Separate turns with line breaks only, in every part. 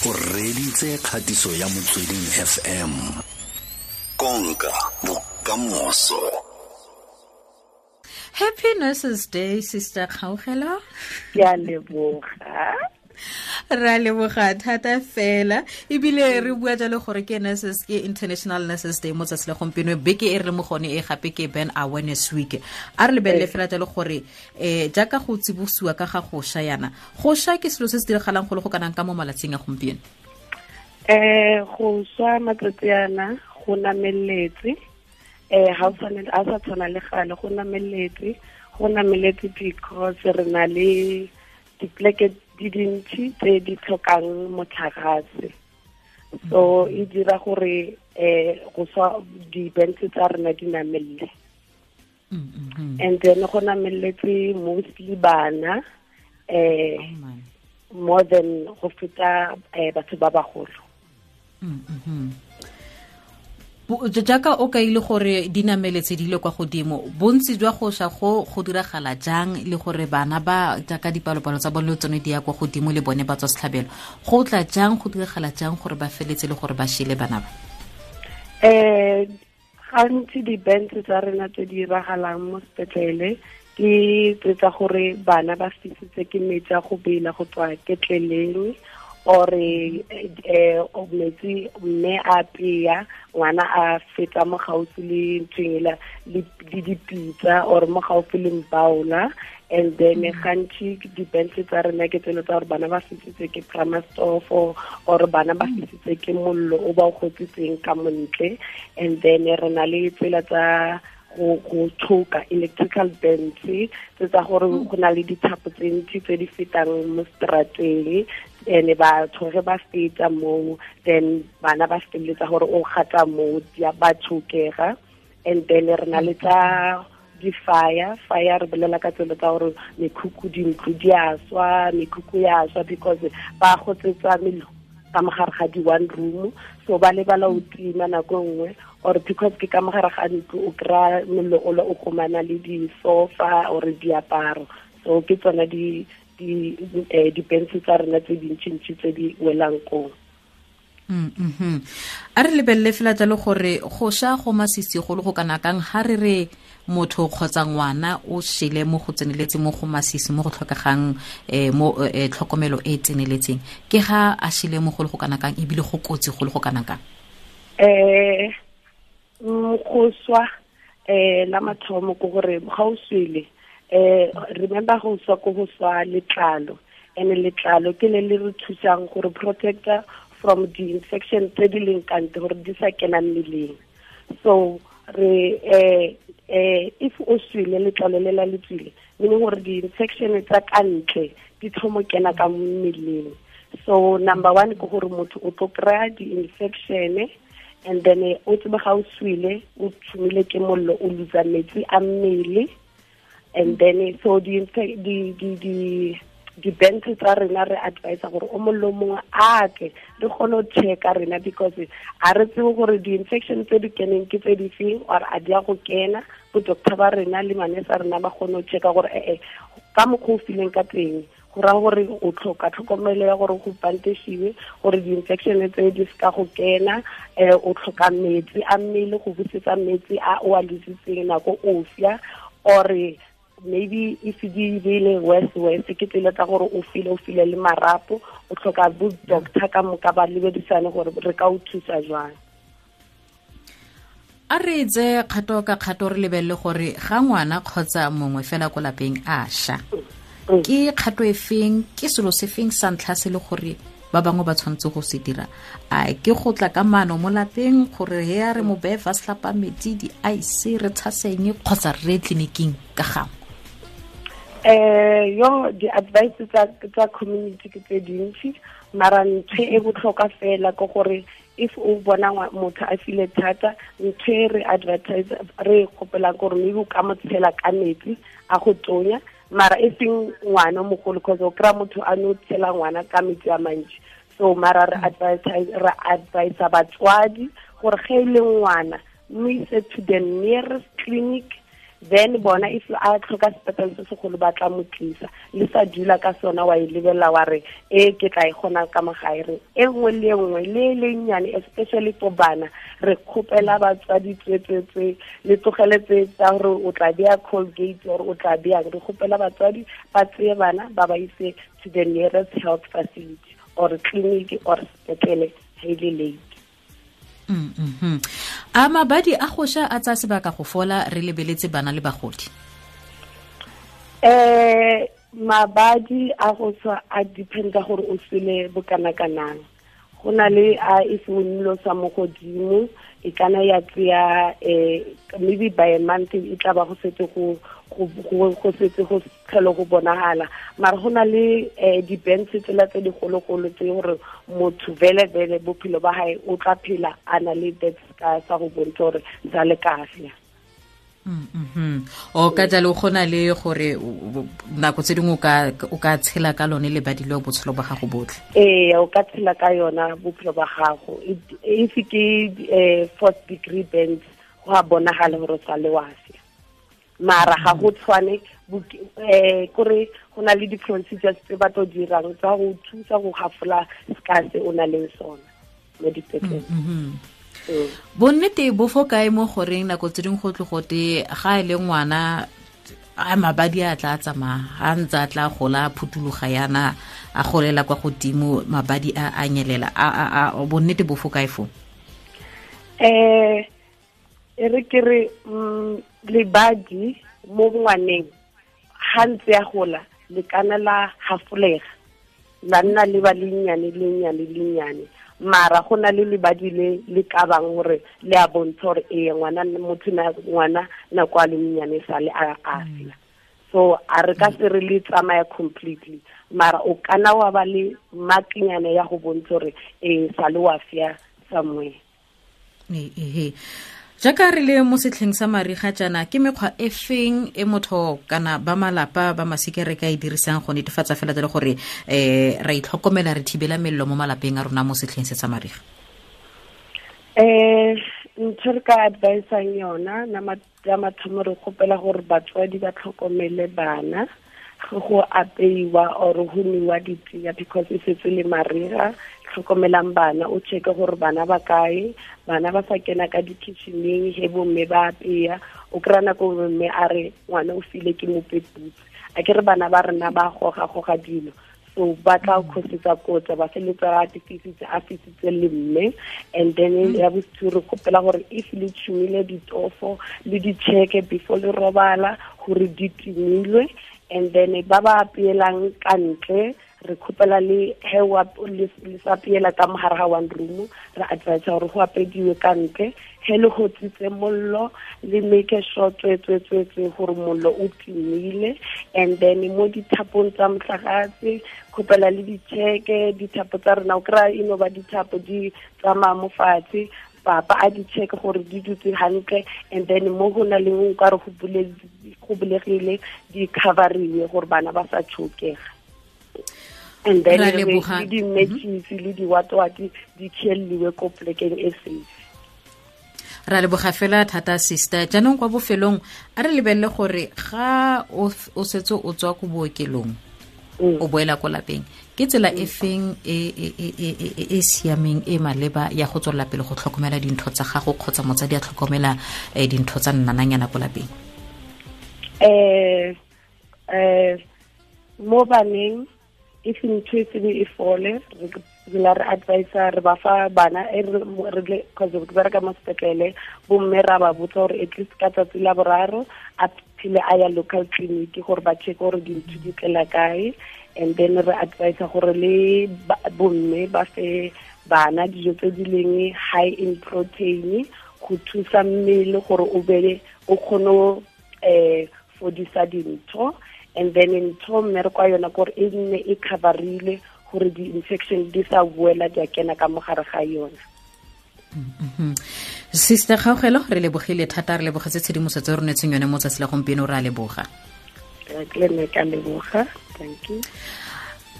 O reditse kgatiso ya Motsweding FM. Konka bokamoso.
Happy Nurses Day, Sister Kgaugelo.
Ke a leboga.
Ra leboga thata fela, ebile re bua jalo gore ke nurses, ke International Nurses Day mo tsatsi la gompieno, beke e re le mo gone e gape ke Burn Awareness Week. A re lebelele fela jalo gore jaaka go tsibosiwa ka ga go sha yana, go sha ke selo se se diragalang go le go kanang ka mo malatsing a gompieno?
Go swa matsatsi ana go nameletse, ha o tshwane, ha sa tshwana le gale, go nameletse, go nameletse because re na le dipleke di dintsi tse di tlhokang motlakase. So e dira gore go swa di-bands tsa rena di namelle. And then go nameletse mostly bana, more than go feta batho ba bagolo.
Jaaka o kaile gore di nameletse di le kwa godimo, bontsi jwa go sha go go diragala jang, le gore bana ba jaaka dipalopalo tsa bone le tsone di ya kwa godimo le bone ba tswa setlhabelo, go tla jang, go diragala jang gore ba feletse le gore ba shele bana ba?
Gantsi di-bands tsa rena tse di diragalang mo sepetlele ke tse tsa gore bana ba fisitse ke metsi a go bela go tswa ketleleng, or metsi mme a peya, ngwana a feta mo gaufi le nthweng ela le dipitsa, or mo gaufi le mbaola. And then gantsi di-bands tsa rena ke tselo tsa gore bana ba fisitse ke pramastofo, or bana ba fisitse ke mollo o ba o gotsitseng ka montle. And then re na le tsela tsa go tshoka electrical bands tse tsa gore go na le dithapo tse ntsi tse di fetang mo strateng, ene batho ge ba feta moo, then bana ba feleletsa gore o gata moo, di a ba tshokega. And then re na le tsa di-fire, fire re bolela ka tselo tsa gore mekhukhu, dintlo di a swa, mekhukhu ya swa because ba gotsetsa mello ka mogare ga di-one room, so ba lebala o tima nako nngwe, or because ke ka mogare ga ntlo o kry-a mollo o le o gomana le di-sofa or diaparo. So ke tsona di-bands tsa rena tse dintšintši tse di welang koo.
A re lebelele fela jalo gore go sha go masisi go le go kana kang ha re re motho kgotsa ngwana o shele mo go tseneletseng, mo go masisi, mo go tlhokegang, mo tlhokomelo e tseneletseng, ke ga a shele mo go le go kana kang, ebile go kotsi go le go kana kang?
Go swa, la mathomo ke gore ga o swele, remember go swa ko go swa letlalo, and letlalo ke le le re thusang gore protector from the infection tse di leng ka ntle gore di sa kena mmeleng. So re if o swele letlalo le la le tswile, meaning gore di-infection tsa ka ntle di thomo kena ka mmeleng. So number one ke gore motho o tlo kry-a di-infection, and then o tsebe ga o swele o tshumile ke mollo, o losa metsi a mmele. And then so di-bands tsa rena re advise gore o mongwe le mongwe a tle re kgone go checka rena, because a re tsebe gore di-infection tse di keneng ke tse di feng, or a di a go kena. Bo doctor ba rena le manese a rena ba kgone go checka gore ka mokgwa o fileng ka teng, go raya gore o tlhoka tlhokomelo ya gore go pantesiwe gore di-infection tse di seka go kena. O tlhoka metsi a mmele go busetsa metsi a o a lositseng nako o fia, or maybe if di bile worse worse ke tsela tsa gore o file, o file le marapo, o tlhoka bo doctor ka moka ba lebedisane gore re ka o thusa jwang.
A re tse kgato ka kgato re lebelele gore ga ngwana kgotsa mongwe fela ko lapeng a sha, ke kgato e feng, ke selo se feng sa ntlha se le gore ba bangwe ba tshwanetse go se dira? A ke go tla ka maano mo lapeng gore he a re mo beye fa setlhapa metsi, di-ice, re tshaseng, kgotsa re ye tleliniking ka gangwe?
Yo di-advice tsa community ke tse dintsi, mara ntho e botlhokwa fela ke gore if o bona motho a file thata, ntho e re advertise re kgopelang gore maybe o ka mo tshela ka metsi a go tonya, mara e seng ngwana o mogolo, cause o kry-a motho a no tshela ngwana ka metsi a mantsi. So mara re advertise, re advise batswadi gore ge e le ngwana, mo ise to the nearest clinic. Then bona if a tlhoka sepetlele se segolo ba tla mo tlisa. Le sa dula ka sona wa e lebelela wa re e ke tla e kgona ka mogae. Re e nngwe le nngwe le le nnyane, especially for bana, re kgopela batswadi tswetswetswe le tlogele tse tsa gore o tla beya Colgate or o tla beyang. Re kgopela batswadi ba tseye bana ba ba ise to the nearest health facility or clinic or sepetlele ha e le late.
A mabadi a go sha a tsaya sebaka go fola re lebeletse bana le bagodi?
Mabadi a go swa a dependa gore o sele bokana-kanang. Go na le a e se sa mo godimo, e kana ya tseya maybe by a month e tla ba go setse go setse go tlhelo go bonagala. Mara go na le di-bands tsela tse digologolo tse gore motho vele-vele bophelo ba hae o tla phela a na le that scar sa go bontsha gore sa le kahle.
O ka jalo go na le gore nako tse dingwe o ka tshela ka lone lebadi leo botshelo ba gago botlhe?
Ee, o ka tshela ka yona bophelo ba gago. If ke fourth degree burns, go a bonagala gore o sa le wa sia. Mara ga go tshwane, kore go na le di-procedures tse ba tlo dirang tsa go thusa go gafola scar se o na leng sona mo dipetlele.
Bonnete bo fo kae mo goreng nako tse dingwe go tle gote ga e le ngwana a mabadi a tla tsamaya a ntse a tla gola a phuthuloga yana a golela kwa godimo mabadi a a nyelela, a bonnete bo fo kae fo?
E re ke re lebadi mo ngwaneng ga ntse a gola le kana la hafolega la nna le ba lennyane lennyane lennyane. Mara go na le lebadi le le ka bang gore le a bontsha gore ee ngwana motho na ngwana nako a le monnyane sa le a afela. So a re ka se re le tsamaya completely, mara o kana wa ba le makinyana ya go bontsha gore ee sa le wa fia somewhere.
Ehe. Jaaka re le mo setlheng sa mariga jaana, ke mekgwa e feng e motho kana ba malapa ba masika re ka e dirisang go netefatsa fela jalo gore ra itlhokomela re thibela mello mo malapeng a rona mo setlheng se sa mariga?
Ntho re ka advisang yona ya mathomo, re kgopela gore batswadi ba tlhokomele bana go apeiwa or go nwewa ditee because e setse le mariga. Tlhokomelang bana, o checke gore bana ba kae, bana ba sa kena ka di-kitcheneng he bomme ba apeya. O kry-a nako mme a re ngwana o file ke mopeputse, a ke re bana ba rena ba goga-goga dilo, so ba tla khosetsa kotsa ba feletsa ba fisitse a fisitse le mme. And then ya bosiu re kgopela gore if le tshumile ditofo le di-checke before le robala gore di timilwe. And then ba ba apeelang ka ntle re kgopela le he le sa apeela ka mogare ga one room, re advise gore go apediwe ka ntle. He le gotsitse mollo le make sure tswetswetswetswe gore mollo o timile. And then mo dithapong tsa motlakase kgopela le di-checke dithapo tsa rena, o kry-a e no ba dithapo di tsamaya mo fatshe, papa a di check gore di dutse hantle. And then mo go na le nkare go bulegile di coveriwe gore bana ba sa tshokega. And then le di-matches le di-watwati di khelliwe ko plekeng e safe.
Ra leboga fela thata sister. Jaanong kwa bofelong a re lebelele gore ga o setse o tswa ko bookelong o boela ko lapeng, ke tsela e feng e siameng e maleba ya go tswelela pele go tlhokomela dintho tsa gago kgotsa motsadi a tlhokomela dintho tsa nnananyana ko lapeng?
Mo baneng if ntho e sebe e fole, re la re advisa re ba fa bana re cause re bereka mo sepetlele, bomme ra ba botsa gore at least ka tsatsi la boraro a phele a ya local clinic gore ba check gore dintho di tlela kae. And then re advisa gore le bomme ba fe bana dijo tse di leng high in protein go thusa mmele gore o be o kgone fodisa dintho. And then ntho mmereko wa yona kore e nne e coverile gore di-infection di sa boela di a kena ka mogare ga yona.
Sister Kgaogelo, re lebogile thata, re lebogetse tshedimosetso e re neetseng yone mo tsatsi la gompieno, re a leboga.
Ke le nna ke a leboga, thank you.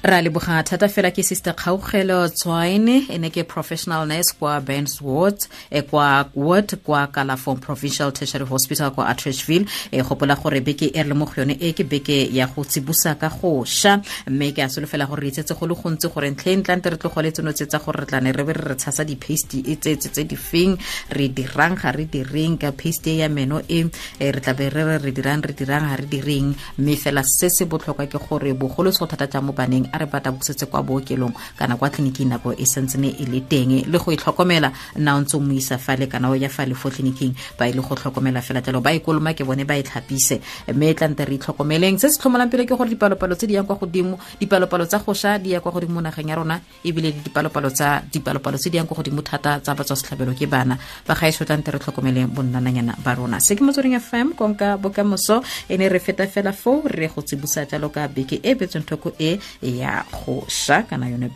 Ra leboga thata fela ke Sister Kgaugelo Tswaine, e ne ke professional nurse kwa Burns Ward, kwa ward kwa Kalafong Provincial Tertiary Hospital kwa Atteridgeville. E gopola gore beke e re le mo go yone e ke beke ya go tsibosa ka go sha, mme ke a solofela gore re itsetse go le gontsi gore ntlheng tlante re tlogole tseno tse tsa gore re tlane re be re tshasa di-paste e tse tse di feng, re dirang ga re direng ka paste ya meno e, re tla be re re dirang re dirang ga re direng. Mme fela se se botlhokwa ke gore bogolo se go thata jang mo baneng, a re bata busetse kwa bookelong kana kwa tleliniking nako e santsene e le teng, le go itlhokomela nna o ntse o mo isa fale kana o ya fale fo tleliniking, ba ile go tlhokomela fela jalo, ba ikoloma ke bone ba e tlhapise. Mme e tlante re itlhokomeleng. Se se tlhomolang pele ke gore dipalopalo tse di yang kwa godimo, dipalopalo tsa go sha di ya kwa godimo nageng ya rona, ebile le dipalopalo tse di yang kwa godimo thata tsa batswa setlhabelo ke bana ba gaetsho. Tlante re tlhokomeleng bonnananyana ba rona. Se ke Motsweding FM, konka bokamoso. E ne re feta fela foo re go tsibusa jalo ka beke e betsweng thoko e ya go sha kana yone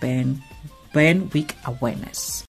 burn week awareness.